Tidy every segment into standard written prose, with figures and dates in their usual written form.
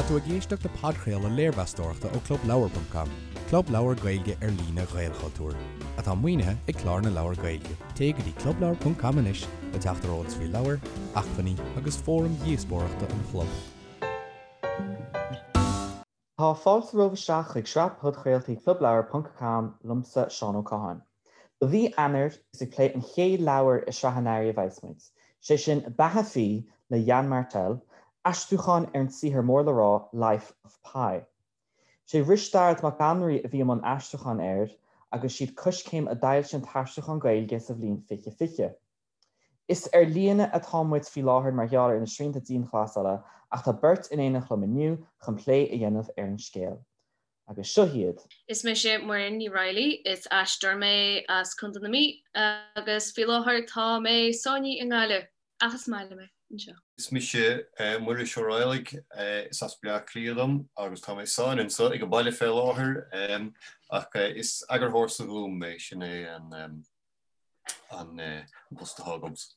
Tá tú ag éisteacht le podchraoladh léirmheastóireachta ó ClubLeabhar.com, club leabhar Gaeilge ar líne Ghaelchultúir, atá maoinithe ag Clár na Leabhar Gaeilge. Téigh go dtí clubleabhar.com anois le teacht ar eolas faoi leabhair, acmhainní agus fóraim dhíospóireachta an chlub. Tá fáilte romhaibh isteach chuig sraith podchraoltaí ClubLeabhar ponc com liomsa Seán Ó Catháin. Do mhí Eanáir is ag plé an chéad leabhar i sraith an earraigh a bheas muid, sé sin Beatha Phí le Yann Martel, aistriúchán ar an saothar mór le rá Life of Pi. Sé Risteárd Mac Annraoi a bhí i mbun aistriúcháin air agus siad Coiscéim a d'fhoilsigh an t-aistriúchán Gaeilge sa bhliain 2020. Is ar líne atá muid faoi láthair mar gheall ar na srianta dianghlasála ach tá beirt in éineacht liom inniu chun plé a dhéanamh ar an scéal. Agus seo iad. Is mise Muireann Ní Raghallaigh, is aisteoir mé as Contae na Mí agus faoi láthair tá mé sáinnithe i nGaillimh, ach is maith liom é anseo. Is mise Muiris Ó Raghallaigh, is as Bleá Cliath dom agus tá mé sáinnithe anseo ag an baile fé láthair ach is eagarthóir sa Ghúm mé, sin é an an post atá agamsa.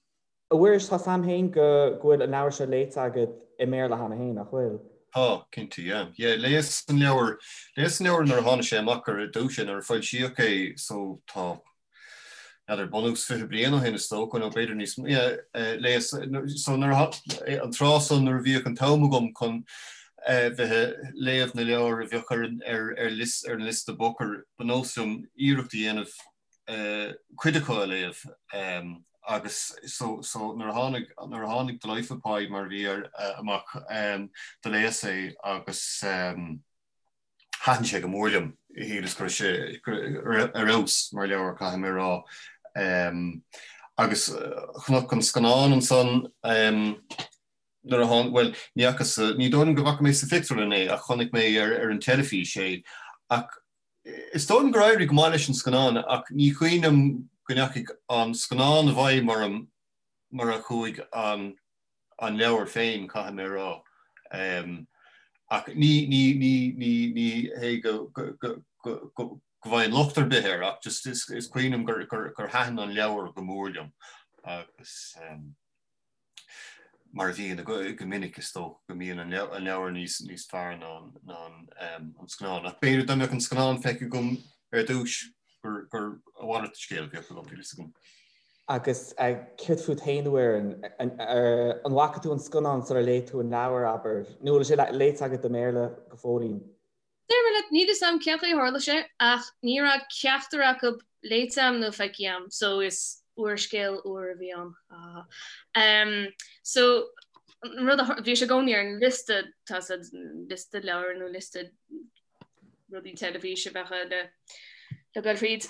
A Mhuiris, tá 's a'm féin go bhfuil an leabhar seo léite agat i mBéarla cheana féin, nach bhfuil? Tá, cinnte, yeah. Yeah, léas an leabhar, léas an leabhar nuair a tháinig sé amach ar dtús, nuair a foilsíodh é, so tá, n'fheadar, bunús 20 bliain ó shin is dócha, nó b'fhéidir níos mó, yeah, léas, so nuair a, an tráth san nuair a bhíodh an t-am agam chun bheith ag léamh na leabhar a bheadh ar an, ar, ar liosta, ar an liosta Booker, ba nós liom iarracht a dhéanamh cuid acu a léamh agus so so nuair a tháinig nuair a tháinig The Life of Pi mar a bhí air amach do léas é agus thaitin sé go mór liom. Shíleas go raibh sé ar fheabhas mar leabhar caithfidh mé a rá. Agus chonac an scannán ansan nuair a tháinig, bhuel ní fhacas, ní dóigh liom go bhfaca mé sa phictiúrlann é ach chonaic mé ar ar an teilifís é ach Is dóigh liom gur éirigh go maith leis an scannán ach ní cuimhin liom go ndeachaigh an scannán i bhfeidhm orm mar a chuaigh an an leabhar féin, caithfidh mé a rá. Ach ní ní ní ní ní hé go go go go go bhfaighim locht ar bith air ach just is is cuimhin liom gur gur gur thaitin an leabhar go mór liom agus. Mar a bhíonn go minic, is dócha go mbíonn an leabhar níos fearr ná an scannán. Ach b'fhéidir dá mbeadh an scannán feicthe agam ar dtús gur a mhalairt de scéal a bheadh agam, níl a fhios agam. Agus céard fút féin, a Mhuireann? An bhfaca tú an scannán sular léigh tú an leabhar, abair? Nó an bhfuil sé léite agat i mBéarla go fóillín? Déarfaidh mé leat, níl fhios a'm cén chaoi a tharla sé, ach ní raibh ceachtar acu léite a'm nó feicthe a'm, so is úrscéal úr a bhí ann. Ha ha. So, an rud a, bhí sé i gcónaí ar an liosta, tá sa liosta leabhar nó liosta rudaí teilifíse a bheadh le le goil fríd.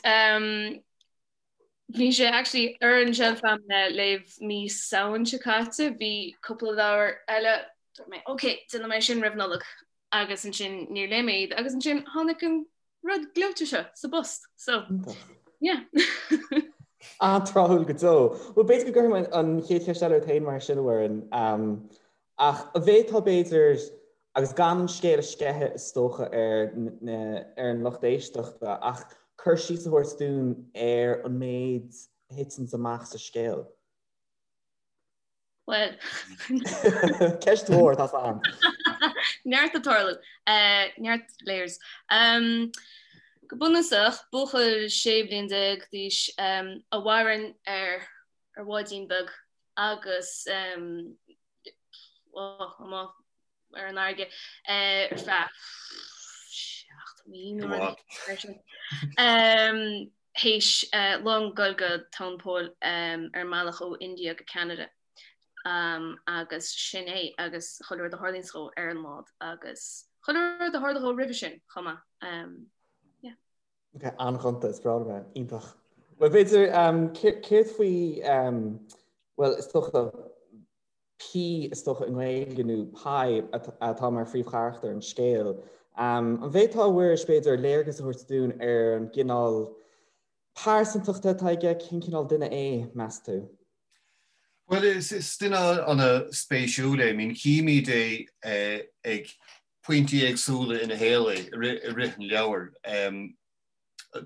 Bhí sé actually ar an shelf a'm le léamh mí Samhain seo caite, bhí cúpla leabhar eile, dúirt mé, ok, déanfaidh mé sin roimh Nollaig. agus ansin níor léigh mé iad agus ansin tháinig an rud gleoite seo sa bpost so yeah. An-tráthúil go deo. Bhuel b'fhéidir go gcuirfidh mé an chéad cheist eile ort féin mar sin a Mhuireann. Ach an bhféadfá b'fhéidir, agus gan an scéal a sceitheadh is dócha ar ar an lucht éisteachta, ach cur síos a thabhairt dúinn ar an méid a thiteanns amach sa scéal. Bhuel. Ceist mhór, tá 's a'm. Neart ag tarlú. Neart layers. Go bunúsach, buachaill 16 bliain d'aois a mhaireann ar ar bháidín beag agus amuigh ar an fharraige ar feadh 7 mí nó rud mar sin. Théis long dul go tóin poill ar an mbealach ó India go Ceanada agus sin é agus chuile rud a tharlaíonns dhó ar an mbád agus chuile rud a tharla dhó roimhe sin chomh maith. Yeah. Ok, an-ghonta, is breá liom é. Iontach. Bhuel, b'fhéidir, céard faoi, bhuel, is dócha, P, is dócha i nGaeilge, nó Pi, atá mar phríomhcharachtar an scéil. An bhféadfá, a Mhuiris, b'fhéidir, léargas a thabhairt dúinn ar an gcineál pearsantachta atá aige, cén cineál duine é, meas tú? Bhuel, is duine an-spéisiúil é. I mean, chímid é ag pointí éagsúla ina shaol é i rith an leabhair.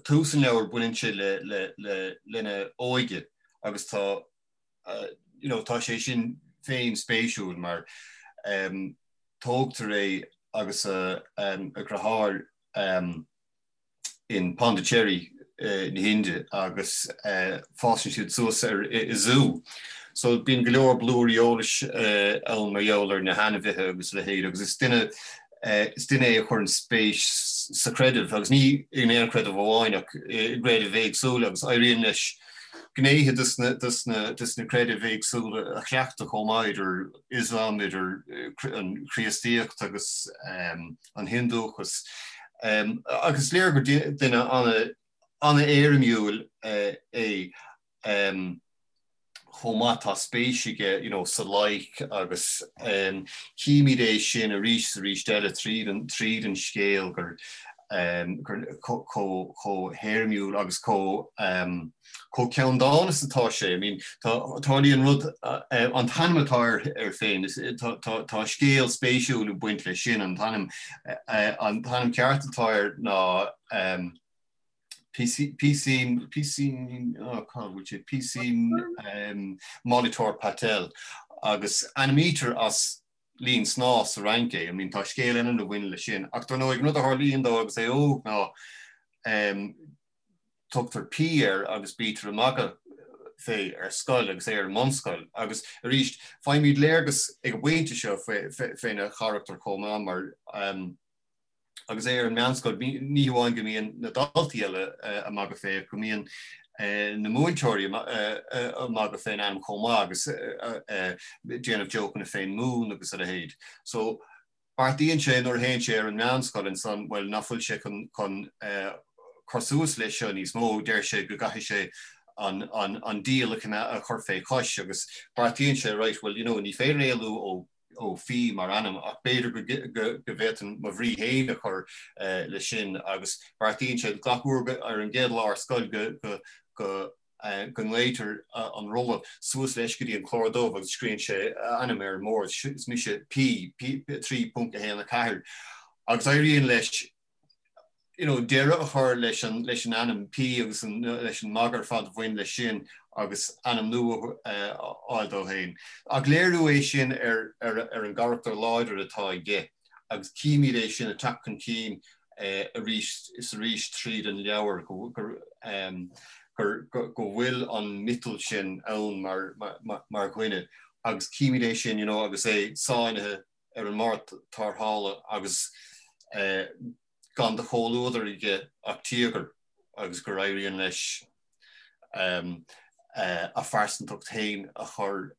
Tús an leabhair, baineann sé lena óige agus tá you know, tá sé sin féin spéisiúil mar tógtar é. agus a dheartháir in Pondicherry na hIndia agus fásann siad suas ar i zú. So bíonn go leor blúirí eolais ann mar gheall ar na hainmhithe agus a leithéid agus is duine is duine é a chuireann spéis sa chreideamh agus ní in aon chreideamh amháin ach i gcreidimh éagsúla agus éiríonn leis gnéithe de na creidimh éagsúla a chleachtadh chomh maith idir Ioslam, idir an Chríostaíocht agus an Hiondúchas. Agus is léir gur duine an-éirimiúil é chomh maith. Tá spéis aige you know sa loighic agus címid é sin arís is arís eile tríd an tríd an scéal gur chomh héirimiúil agus chomh chomh ceanndána is atá sé. I mean, tá, tarlaíonn rud, an t-ainm atá air, air féin, tá, tá, tá scéal spéisiúil ag baint leis sin, an t-ainm, an t-ainm ceart atá air ná PC, PC, PC, oh, cá bhfuil sé, PC Molitor Patel agus ainmnítear as linn snámha sa Fhrainc é. I mean, tá scéal eile a bhain leis sin. Ach dar ndóigh, an rud a tharlaíonn dó agus é óg ná tugtar P air agus bítear ag magadh fé ar scoil agus é ar an mbunscoil. Agus arís, faighimid léargas ag an bpointe seo féna charachtar chomh maith mar agus é ar an meánscoil, ní hamháin go mbíonn na daltaí eile ag magadh fé ach go mbíonn na múinteoirí ag magadh fén ainm chomh maith agus déanamh jócanna fén moon agus a leithéid. So Beartaíonn sé nuair a théann sé ar an meánscoil ansan, bhuel, nach bhfuil sé chun cur suas leis seo níos mó, deir sé go gcaithfidh sé an diabhal a chur fé chois agus beartaíonn sé, right, well, you know, ní féidir éalú ó ó P mar ainm ach b'fhéidir go bhféadfainn mo bhrí féin a chur leis sin agus beartaíonn sé gach uair ar an gcéad lá ar scoil go go go nglaoitear an rolla suas leis go dtí an clár dubh agus scríobhann sé a ainm ar an mbord, is mise P, P 3.1 4, agus éiríonn leis you know, deireadh a chur leis an, leis an ainm P agus an, leis an magadh ar fad a bhain leis sin agus ainm nua a fháil dó féin. Ach léiriú é sin ar, ar, ar an gcarachtar láidir atá aige agus címid é sin ag teacht chun cinn arís is arís tríd an leabhar go bhfuil an miotal sin ann mar dhuine agus címid é sin you know agus é sáinnithe ar an mbord tarrthála agus gan de chomhluadar aige ach tíogar agus gur éiríonn leis a phearsantacht féin a chur,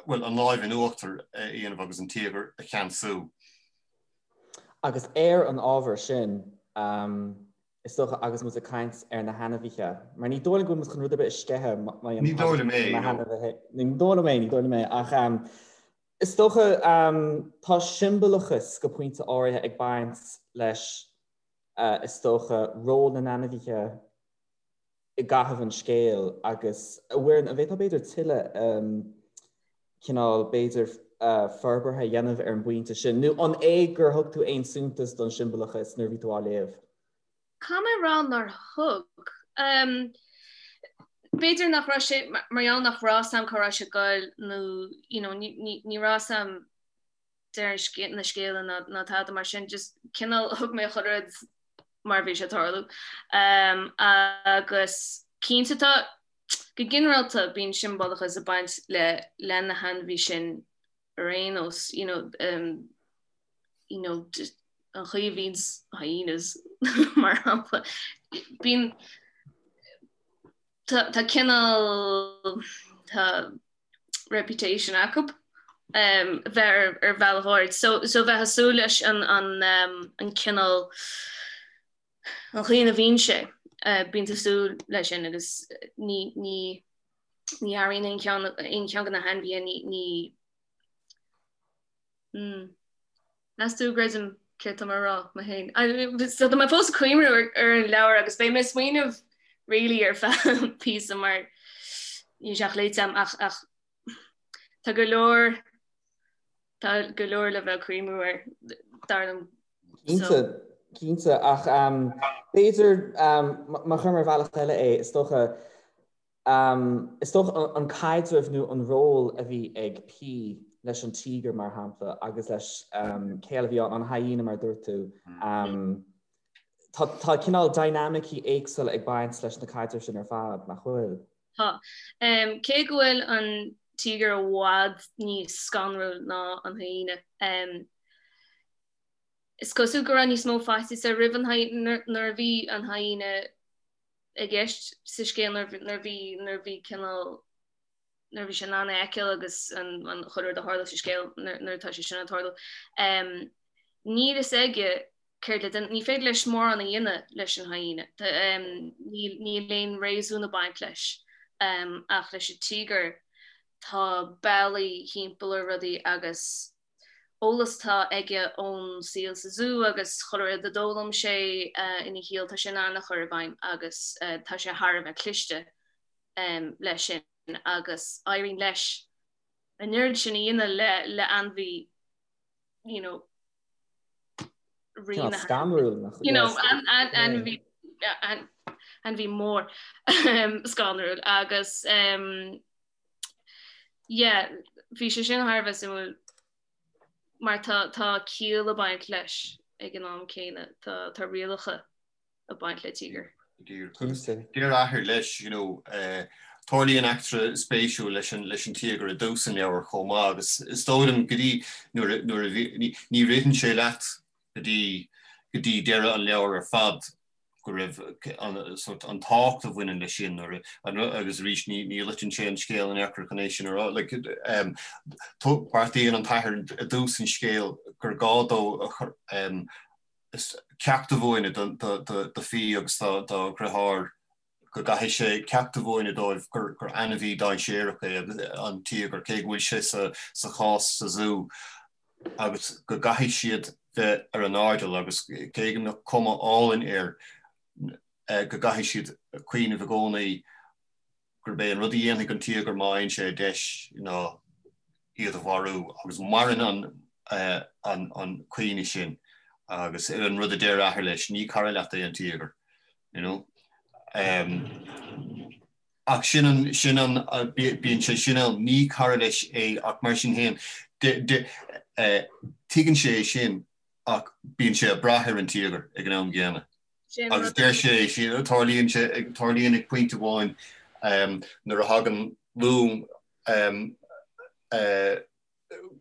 bhuel, an láimh in uachtar a dhéanamh agus an tíogar a cheansú. Agus ar an ábhar sin, is dócha, agus muid ag caint ar na hainmhithe, mar ní dóigh liom go bhfuil muid chun rud ar bith a sceitheadh má Ní dóigh liom é, no. Ní dóigh liom é, ní dóigh liom é, ach is dócha tá siombalachas go pointe áirithe ag baint leis, is dócha, ról na n-ainmhithe i gcaitheamh an scéil agus, a Mhuireann, an bhféadfá b'fhéidir tuilleadh cineál, b'fhéidir, forbartha a dhéanamh ar an bpointe sin, nó an é gur thug tú aon suntas don siombalachas nuair a bhí tú á léamh? Caithfidh mé a rá nár thug. B'fhéidir nach raibh sé, mar gheall nach raibh 's a'm cá raibh sé ag goil nó, you know, ní raibh 's a'm deireadh na scéala ná tada mar sin, just cineál thug mé chuile rud mar a bhí sé ag tarlú. Agus cinnte tá, go ginearálta bíonn siombalachas ag baint le le na hainmhithe sin ar aon nós, you know, um, you know, just an chaoi a bhíonns hyenas mar shampla, bíonn tá tá cineál tá reputation acu bheith ar bhealach áirid. So so bheith ag súil leis an an an cineál an chaoi ina bhíonn sé, bíonn tú ag súil leis sin agus ní ní ní athraíonn aon cheann aon cheann de na hainmhithe ní ní mm. Meas tú an gcreidim céard tá mé a rá mé féin. So tá mé fós ag cuimhniú ar an leabhar agus beidh mé ag smaoineamh really ar feadh píosa mar níl sé ach léite agam ach ach tá go leor tá go leor le bheith ag cuimhniú air dar liom. Cinnte, cinnte ach b'fhéidir má chuirim ar bhealach eile é is dócha is dócha an caidreamh nó an ról a bhí ag P. leis an tíogar mar shampla agus leis cé eile a bhí ann, an hyena mar a dúirt tú. Tá cineál dynamicí éagsúla ag baint leis na caidrimh sin ar fad, nach bhfuil? Tá. Cé go bhfuil an tíogar i bhfad níos scanrúil ná an hyena, is cosúil go raibh níos mó faitíos air roimh an hyena nuair a bhí an hyena i gceist sa scéal nuair a bhí nuair a bhí cineál nuair a bhí sé in ann é a fheiceáil agus an chuile rud a tharla sa scéal nuair atá sé sin ag tarlú. Níl fhios aige céard le déanamh, ní féidir leis mórán a dhéanamh leis an hyena. Níl aon réasún ag baint leis ach leis an tíogar tá bealaí thimpeall ar rudaí agus eolas atá aige ón saol sa zú agus chuile rud a d'fhoghlaim sé ina shaol tá sé in ann a chur i bhfeidhm agus tá sé thar a bheith cliste leis sin agus éiríonn leis an oiread sin a dhéanamh le le ainmhí you know scanrúil you know ainmhí ainmhí mór scanrúil agus yeah bhí sé sin thar a bheith suimiúil mar tá tá ciall ag baint leis ag an am céanna tá tá rialacha ag baint le tíogar. Deir a athair leis, you know, tarlaíonn eachtra spéisiúil leis an leis an tíogar i dtús an leabhair chomh maith agus is dóigh liom go dtí nuair a nuair a bhí ní ní ritheann sé leat go dtí go dtí deireadh an leabhair ar fad go raibh an sort an tábhacht a bhaineann leis sin nuair a agus arís ní ní loiteann sé an scéal in aon chor chun é sin a rá like um, beartaíonn an t-athair i dtús an scéil gur gá dó a chur um, ceacht a mhúineadh do Fi agus dá dheartháir go gcaithfidh sé ceacht a mhúineadh dóibh gur ainmhí dainséarach é an tíogar, cé go bhfuil sé sa chás sa zú, agus go gcaithfidh siad bheith ar a n-airdeall agus cé go mbeadh cuma álainn air, go gcaithfidh siad cuimhneamh i gcónaí gurb é an rud a dhéanfaidh an tíogar má fhaigheann sé deis ná iad a mharú agus maireann an an cuimhne sin agus an rud a deir a athair leis, ní cara leat é an tíogar, you know. Um, ach sin an, sin an, bíonn sé sin ann, ní cara leis é ach mar sin féin, tuigeann sé é sin ach bíonn sé ag brath ar an tíogar ag an am gcéanna. Agus deir sé, tarlaíonn sé, tarlaíonn ag pointe amháin nuair a thagann long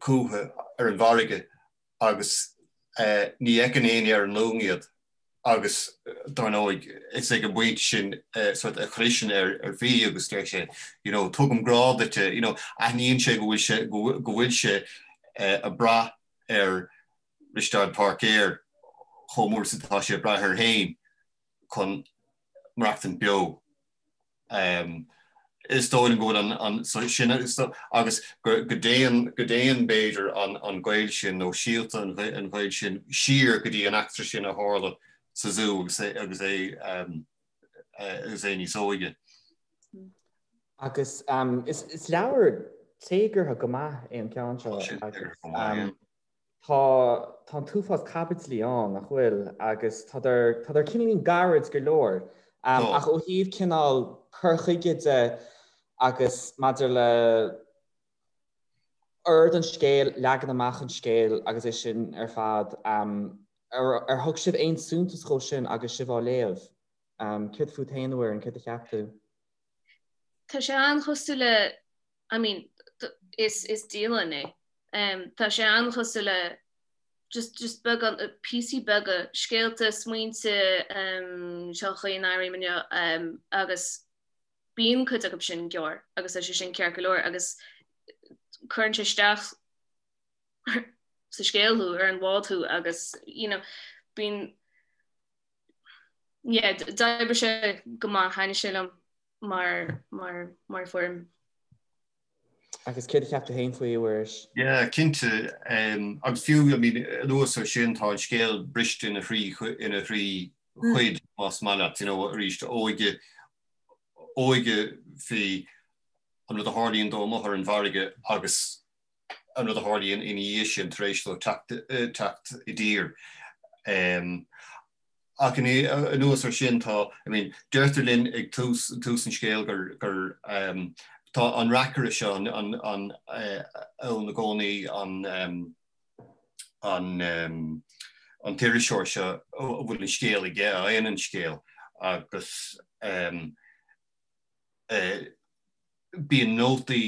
chucu ar an bhfarraige agus ní fheiceann éinne ar an long iad agus dar ndóigh is ag an bpointe sin sort a chliseann ar ar Fi agus deir sé you know tugaim grá duit you know aithníonn sé go bhfuil sé go bhfuil sé ag brath ar Risteárd Páircéir chomh mór is atá sé ag brath air féin chun maireachtaint beo. Is dóigh liom go bhfuil an sin agus go dtéann go dtéann b'fhéidir an gaol sin nó síolta an ghaoil sin siar go dtí an eachtra sin a tharla sa zú agus é agus é agus é níos óige. Agus is leabhar téagartha go maith é an ceann seo agus Tá, tá an t-uafás caibidlí ann, nach bhfuil? Agus tádar, tádar cineáilín gairid go leor. Ach ó thaobh cineál cur chuige de agus maidir le ord an scéil, leagan amach an scéil agus é sin ar fad, ar thug sibh aon suntas dhó sin agus sibh á léamh? Céard fút féin, a Mhuireann, céard a cheap tú? Tá sé an-chosúil le I mean, is, is dialann é. Tá sé an-chosúil le just, just beagán, píosaí beaga, scéalta, smaointe, seo an chaoi a n-airím inniu, agus bíonn cuid acu sin gearr agus tá sé sin ceart go leor agus cuireann sé isteach sa scéal thú, ar an bhád thú agus, you know, bíonn, yeah, d'oibrigh sé go maith, thaitnigh sé liom. mar mar mar foirm. Agus céard a cheap tú féin faoi, a Mhuiris? Yeah, cinnte. Agus fiú, I mean, anuas ar sin, tá an scéal briste ina thrí ina thrí chuid, más maith leat, you know, arís, óige, óige Fi, an rud a tharlaíonn dó amuigh ar an bhfarraige agus an rud a tharlaíonn ina dhiaidh sin tar éis dó teacht i dtír. Ach anuas ar sin tá, I mean, deirtear linn ag tús, tús an scéil gur, gur. Tá an reacaire seo an ann i gcónaí, an an an t-iriseoir seo a bhfuil an scéal aige, a fhaigheann an scéal agus bíonn nótaí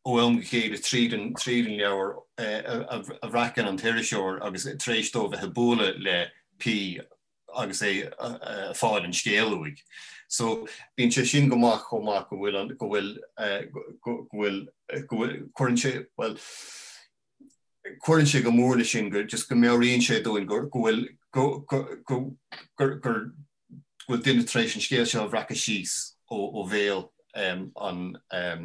ó am go chéile tríd an tríd an leabhar a bhreacann an t-iriseoir agus tar éis dó bheith ag bualadh le P agus é ag fáil an scéal uaidh. So bíonn sé sin go maith chomh maith go bhfuil an go bhfuil go bhfuil go bhfuil cuireann sé bhuel cuireann sé go mór leis sin go just go meabhraíonn sé dúinn go go bhfuil go go go gur gur go bhfuil duine tar éis an scéal seo a bhreacadh síos ó ó bhéal an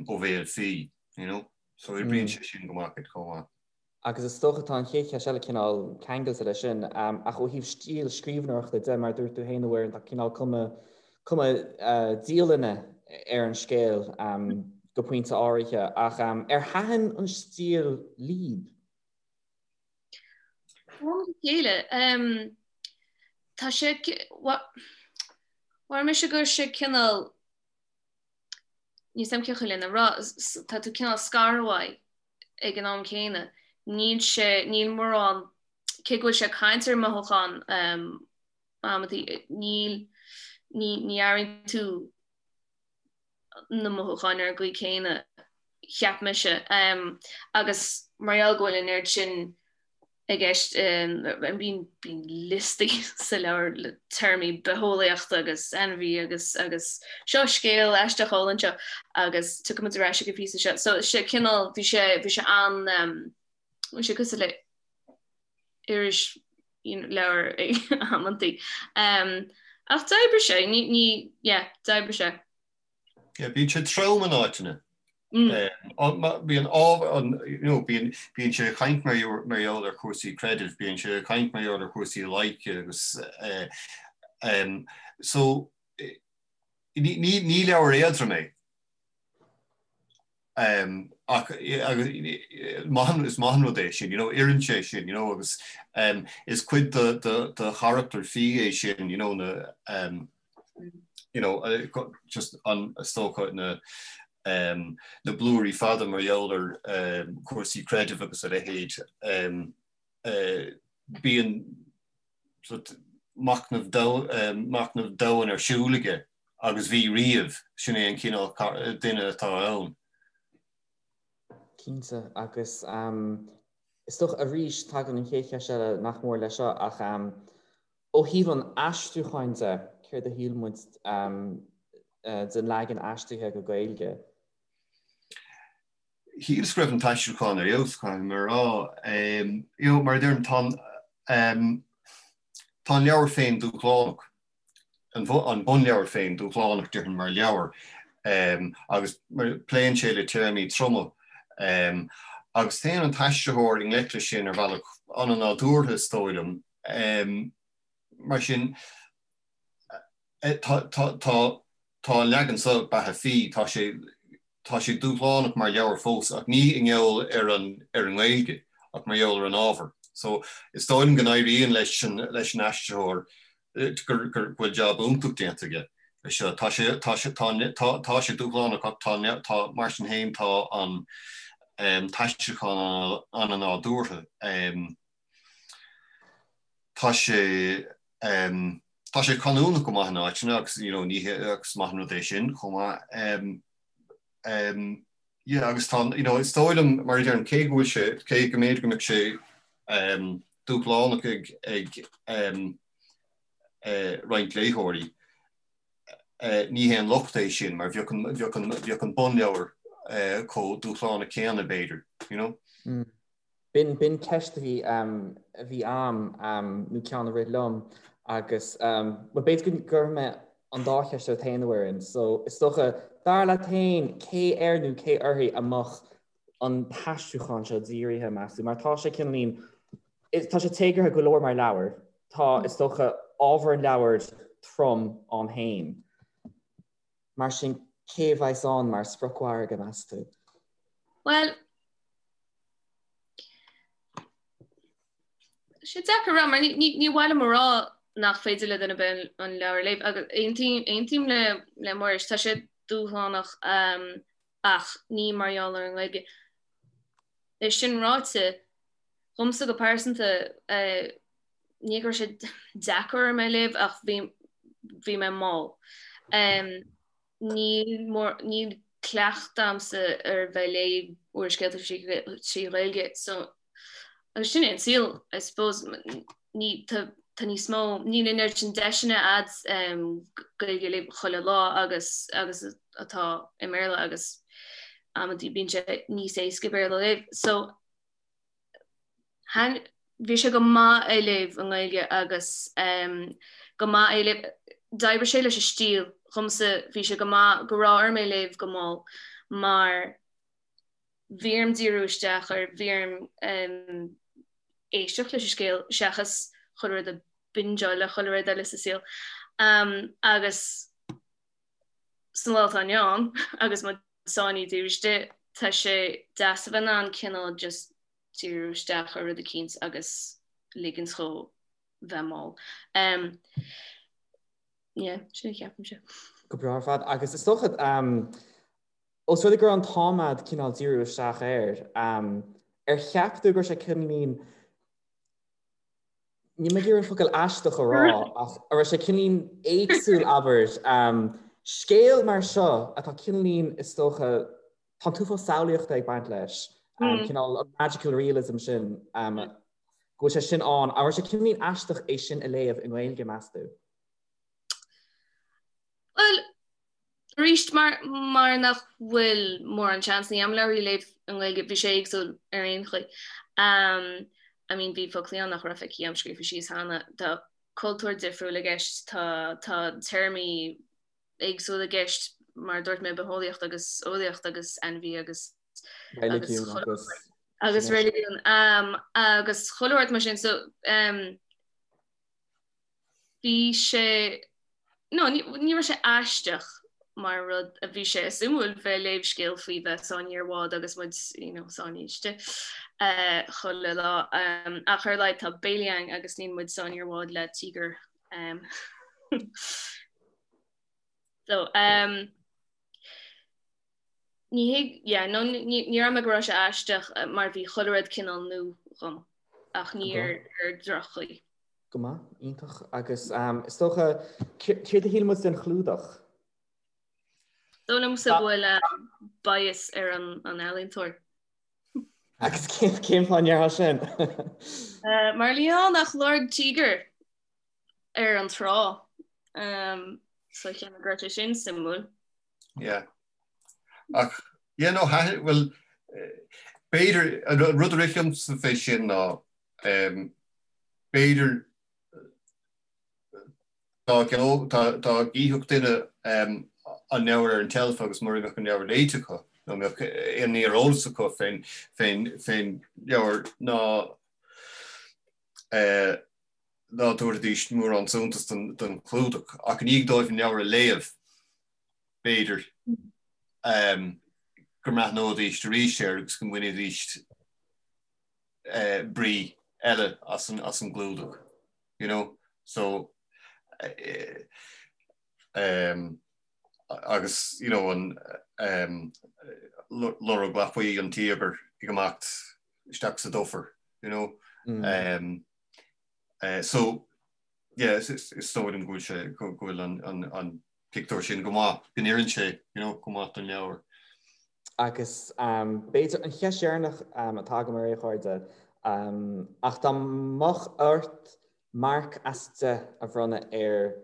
ó bhéal P, you know? So oibríonn sé sin go maith chomh maith. Agus is dócha tá an chéad cheist eile cineál ceangailte leis sin, ach ó thaobh stíl scríbhneoireachta de, mar a dúirt tú féin a Mhuireann, tá cineál cuma, cuma dialainne ar an scéal go pointe áirithe, ach ar thaitin an stíl libh? Ó am go chéile. Tá sé, mhair mise go raibh sé cineál, níl 's a'm cén chaoi lena rá, tá tú cineál scartha uaidh ag an am céanna. Níl sé, níl mórán, cé go bhfuil sé ag caint ar mhothúcháin amantaí, níl, ní, ní airíonn tú na mothúcháin ar an gcaoi céanna, cheap mise. Agus mar gheall go bhfuil an oiread sin i gceist, bíonn liostaí sa leabhar le téarmaí bitheolaíochta agus ainmhí agus agus seo scéal aisteach álainn seo agus tiocfaidh muid ar ais ag an phíosa seo. So sé cineál, bhí sé, bhí sé an, bhí sé cosúil le irisleabhar ag amantaí. Ach d'oibrigh sé, ní, ní, yeah, d'oibrigh sé. Yeah, bíonn sé trom in áiteanna. Bíonn ábhar, you know, bíonn, bíonn sé ag caint mar mar gheall ar chúrsaí creidimh, bíonn sé ag caint mar gheall ar chúrsaí loighce agus um, so ní, ní, ní leabhar éadrom é. Um, ach agus maith is maith an rud é sin, you know, oireann sé sin, you know, agus um, is cuid de, de, de charachtar P é sin, you know, na, um, you know, just an is dócha na um, na blúirí fada mar gheall ar um, cúrsaí creidimh agus a leithéid um, uh, bíonn machnamh machnamh domhain ar siúl aige agus bhí riamh, sin é an cineál duine atá ann. Cinnte, agus is dócha arís tagann an chéad cheist eile nach mór leis seo ach ó thaobh an aistriúcháin de, céard a shíl muid den leagan aistrithe go Gaeilge? Shíleas go raibh an t-aistriúchán ar fheabhas, caithfidh mé a rá. You know, mar a deirim, tá an, tá an leabhar féin dúshlánach, an bunleabhar féin dúshlánach, déarfainn, mar leabhar, agus pléann sé le téarmaí troma. Agus téann an t-aistritheoir i ngleic leis sin ar bhealach an-nádúrtha, is dóigh liom. Mar sin, tá, tá, tá, tá an leagan seo, Beatha Phí, tá sé, tá sé dúshlánach mar leabhar fós ach ní i ngeall ar an, ar an nGaeilge ach mar gheall ar an ábhar. So, is dóigh liom go n-éiríonn leis an, leis an aistritheoir, gur, gur, go bhfuil jab iontach déanta aige leis seo. Tá sé, tá sé, tá, tá, tá sé dúshlánach ach tá, tá, mar sin féin tá an t-aistriúchán an-nádúrtha. Tá sé, tá sé canúnach go maith in áiteanna agus you know ní hé agus maith an rud é sin chomh maith. Yeah agus tá you know is dóigh liom mar a deirim cé go bhfuil sé, cé go mb'fhéidir go mbeadh sé dúshlánach ag ag roinnt léitheoirí, ní haon locht é sin mar bheadh an bheadh an bheadh an bunleabhar chomh dúshlánach céanna b'fhéidir, you know. B'in, b'in ceist a bhí, a bhí a'm, nó ceann a rith liom agus, bhuel b'fhéidir go gcuirfidh mé an dá cheist ort féin a Mhuireann. So is dócha, dar leat féin, cé air nó cé uirthi a mbeadh an t-aistriúchán seo dírithe, meas tú? Mar tá sé cineáilín, tá sé téagartha go leor mar leabhar, tá, is dócha, ábhar an leabhair trom ann féin. Mar sin, cé a bheas ann mar spriocmhargadh, meas tú? Bhuel, tá sé deacair a rá, mar ní mhaith liom a rá nach féidir le duine ar bith an leabhar a léamh, agus aontaím, aontaím le, le Muiris, tá sé dúshlánach. Ach ní mar gheall ar an nGaeilge. É sin ráite, dhomsa go pearsanta, ní go raibh sé deacair orm é a léamh ach bhí bhí mé mall. Níl mór níl cleachtadh a'msa ar bheith ag léamh úrscéalta trí Ghaeilge so agus sin é an saol I suppose ní tá tá níos mó níl an oiread sin deiseanna a'd Gaeilge a léamh chuile lá agus agus atá i mBéarla agus amantaí bíonn sé níos éasca Béarla a léamh so bhí sé go maith é a léamh i nGaeilge agus go maith é a léamh d'oibrigh sé leis an stíl dhomsa bhí sé go maith go raibh orm é a léamh go mall mar bhí orm díriú isteach air, bhí orm éisteacht leis an scéal seachas chuile rud a bingeáil le chuile rud eile sa saol. Agus san lá atá inniu ann agus muid sáinnithe taobh istigh, tá sé deas a bheith in ann cineál just díriú isteach ar rud eicínt agus ligint dhó bheith mall. Yeah, sin a cheapaimse. Go breá ar fad. Agus is dócha, Ós rud é go raibh an t-am a'd cineál díriú isteach air, ar cheap tú go raibh sé cineáilín, níl mé ag iarraidh an focal aisteach a rá, ach an raibh sé cineáilín éagsúil, abair, scéal mar seo atá cineáilín, is dócha, tá an t-uafás samhlaíochta ag baint leis, cineál an magical realism sin, go bhfuil sé sin ann, an raibh sé cineáilín aisteach é sin a léamh i nGaeilge, meas tú? Bhuel, Arís, mar mar nach bhfuil mórán seansanna a'm leabhair a léamh i nGaeilge, bhí sé éagsúil ar aon chaoi. I mean bhí foclaí ann nach raibh feicthe a'm scríofa síos cheana. Tá cultúr difriúil i gceist, tá tá téarmaí éagsúla i gceist, mar a dúirt mé, bitheolaíocht agus eolaíocht agus ainmhí agus agus Reiligiún agus agus reiligiún agus chuile shórt mar sin. So Bhí sé, no, ní raibh sé aisteach mar rud a bhí sé suimiúil bheith ag léamh scéal faoi bheith sáinnithe ar bhád agus muid, you know, sáinnithe istigh chuile lá. Ach ar a laghad tá béilí againn agus níl muid sáinnithe ar bhád le tíogar. So, ní thig, yeah, no, ní raibh mé go raibh sé aisteach mar bhí chuile rud cineál nua dhom ach ní ar droch-chaoi. Go maith, iontach. Agus is dócha, céard a shíl muid den chlúdach? Dóigh liomsa go bhfuil bias ar an ealaíontóir. Agus cén fáth a ndéarfá sin? Mar níl ann ach lorg tíogair ar an trá. So cheap mé go raibh sé sin suimiúil. Yeah. Ach, yeah, no, well, b'fhéidir, an rud a rith liomsa fé sin ná, B'fhéidir dá gcífeadh duine an leabhar ar an tseilf agus mura mbeadh an leabhar léite acu nó mbeadh aon ní ar eolas acu fén leabhar ná ná tabharfaidís mórán suntas don chlúdach. Ach i ndiaidh dóibh an leabhar a léamh, b'fhéidir go mbreathnóidís arís air agus go mbainfidís brí eile as an as an gclúdach you know so um, agus you know an um, lorg lapaí an tíogair ag imeacht isteach sa dufair you know mm. um, uh, so yeah, is, is, is dóigh liom go bhfuil sé go bhfuil an, an, an pictiúr sin go maith, go n-oireann sé, you know, go maith don leabhar. Agus b'fhéidir an cheist dheireanach atá agam oraibh a chairde, ach dá mbeadh ort marc as 10 a bhronnadh ar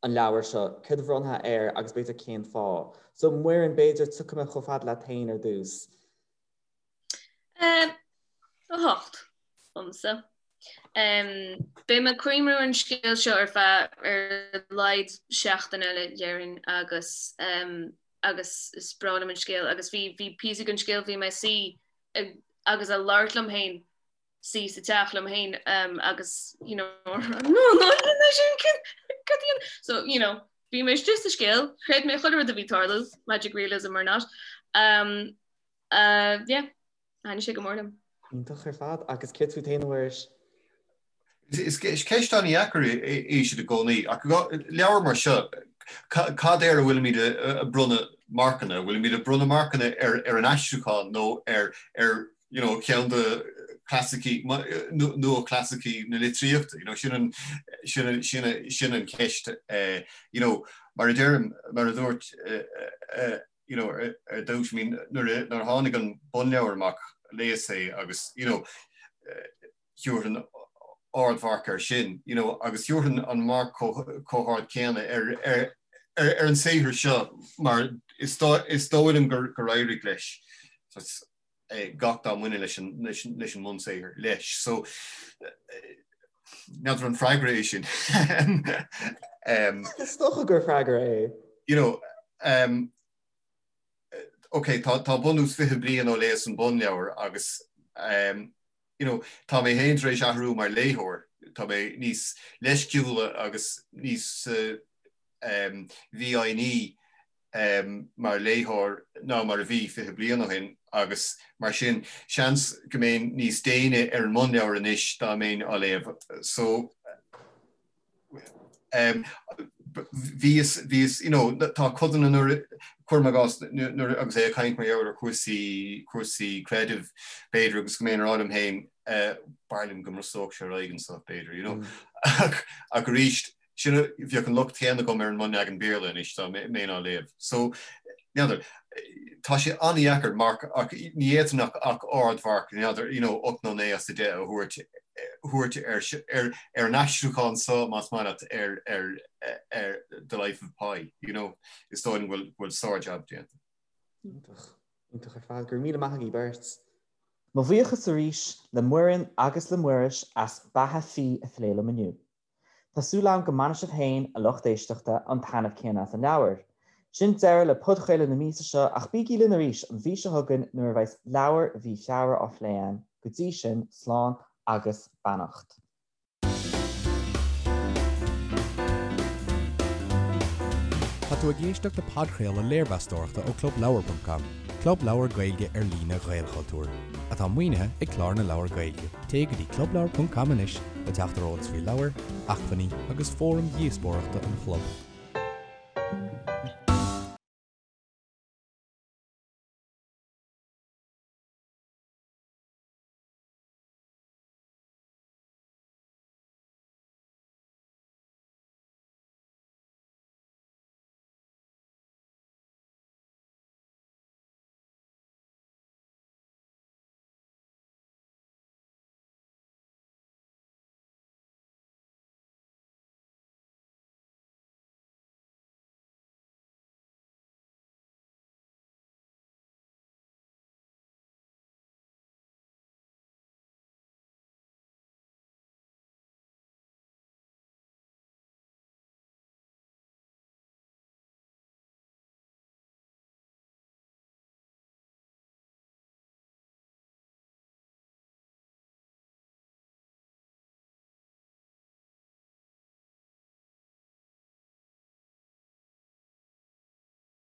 an leabhar seo, céard a bhronnfá air agus b'fhéidir cén fáth? So Muireann, b'fhéidir tiocfaidh mé chomh fada leat féin ar dtús. 8 domsa. Beidh mé ag cuimhniú ar an scéal seo ar feadh ar a laghad seachtain eile déarfainn agus agus is breá liom an scéal agus bhí bhí píosa den scéal bhí mé suí agus ag labhairt liom féin suí sa teach liom féin agus you know no no no sin so you know bhí mé istigh sa scéal chreid mé chuile rud a bhí ag tarlú magic realism or not um, Uh, yeah, thaitnigh sé go mór liom. Iontach ar fad. Agus céard fút féin, a Mhuiris? Is ceist an-dheacair í sin i gcónaí, ach leabhar mar seo, cad air a bhfuilimid ag bronnadh marcanna, bhfuilimid ag bronnadh marcanna ar ar an aistriúchán nó ar ar you know ceann de chlasaicí nua-chlasaicí na litríochta, you know sin an sin an sin an sin an cheist you know mar a deirim mar a dúirt you know ar ar dtús I mean nuair a nuair a tháinig an bunleabhar amach léas é agus you know thabharfainn ardmharc air sin, you know, agus thabharfainn an marc chomh hard céanna ar, ar, ar, ar an saothar seo mar is is dóigh liom gur, gur éirigh leis gach dá mbaineann leis an, leis an, leis an mbunsaothar leis. So, n'fheadar an freagra é sin. Is dócha gur freagra é. You know, um, ok, tá, tá bunús 20 bliain ó léas an bunleabhar agus um, you know, tá mé féin tar éis athrú mar léitheoir, tá mé níos leisciúla agus níos um, mhífhoighní um, mar léitheoir ná mar a bhí 20 bliain ó shin agus mar sin seans go mbeinn níos déine ar an mbunleabhar anois dá mbeinn á léamh. So, Bhíos, bhíos, you know, tá codanna nuair, cuirim i gcás, nuair, agus é ag caint mar gheall ar chúrsaí, cúrsaí creidimh, b'fhéidir, agus go mbeinn ag rá liom féin, b'fhearr liom go mbrostódh sé ar aghaidh anseo, b'fhéidir, you know. Ach, ach arís, sin, bheadh an locht céanna agam ar an mbunleagan Béarla anois dá mbeinn á léamh. So, n'fheadar, tá sé an-dheacair marc, ach ní fhéadfainn ach, ach ardmharc, n'fheadar, you know, 8 nó 9 as 10 a thabhairt, thabhairt ar, ar an aistriúchán so, más maith leat, ar, ar, ar The Life of Pi, you know, is dóigh liom go bhfuil, go bhfuil sár-jab déanta. Iontach. Iontach ar fad. Go raibh míle maith agaibh beirt. Mo bhuíochas arís le Muireann agus le Muiris as Beatha Fiadh a phlé liom inniu. Tá súil agam go mbainfidh sibh féin, a lucht éisteachta, an taitneamh céanna as an leabhar. Sin deireadh le podchraoladh na míosa seo ach bígí linn arís an mhí seo chugainn nuair a bheas leabhar mhí Feabhra á phlé againn. Go dtí sin, slán agus beannacht. Tá tú ag éisteacht le podchraoladh léirmheastóireachta ó ClubLeabhar.com, club leabhar Gaeilge ar líne Ghaelchultúir, atá maoinithe ag Clár na Leabhar Gaeilge. Téigh go dtí clubleabhar.com anois le teacht ar eolas faoi leabhair, acmhainní agus fóraim dhíospóireachta an chlub.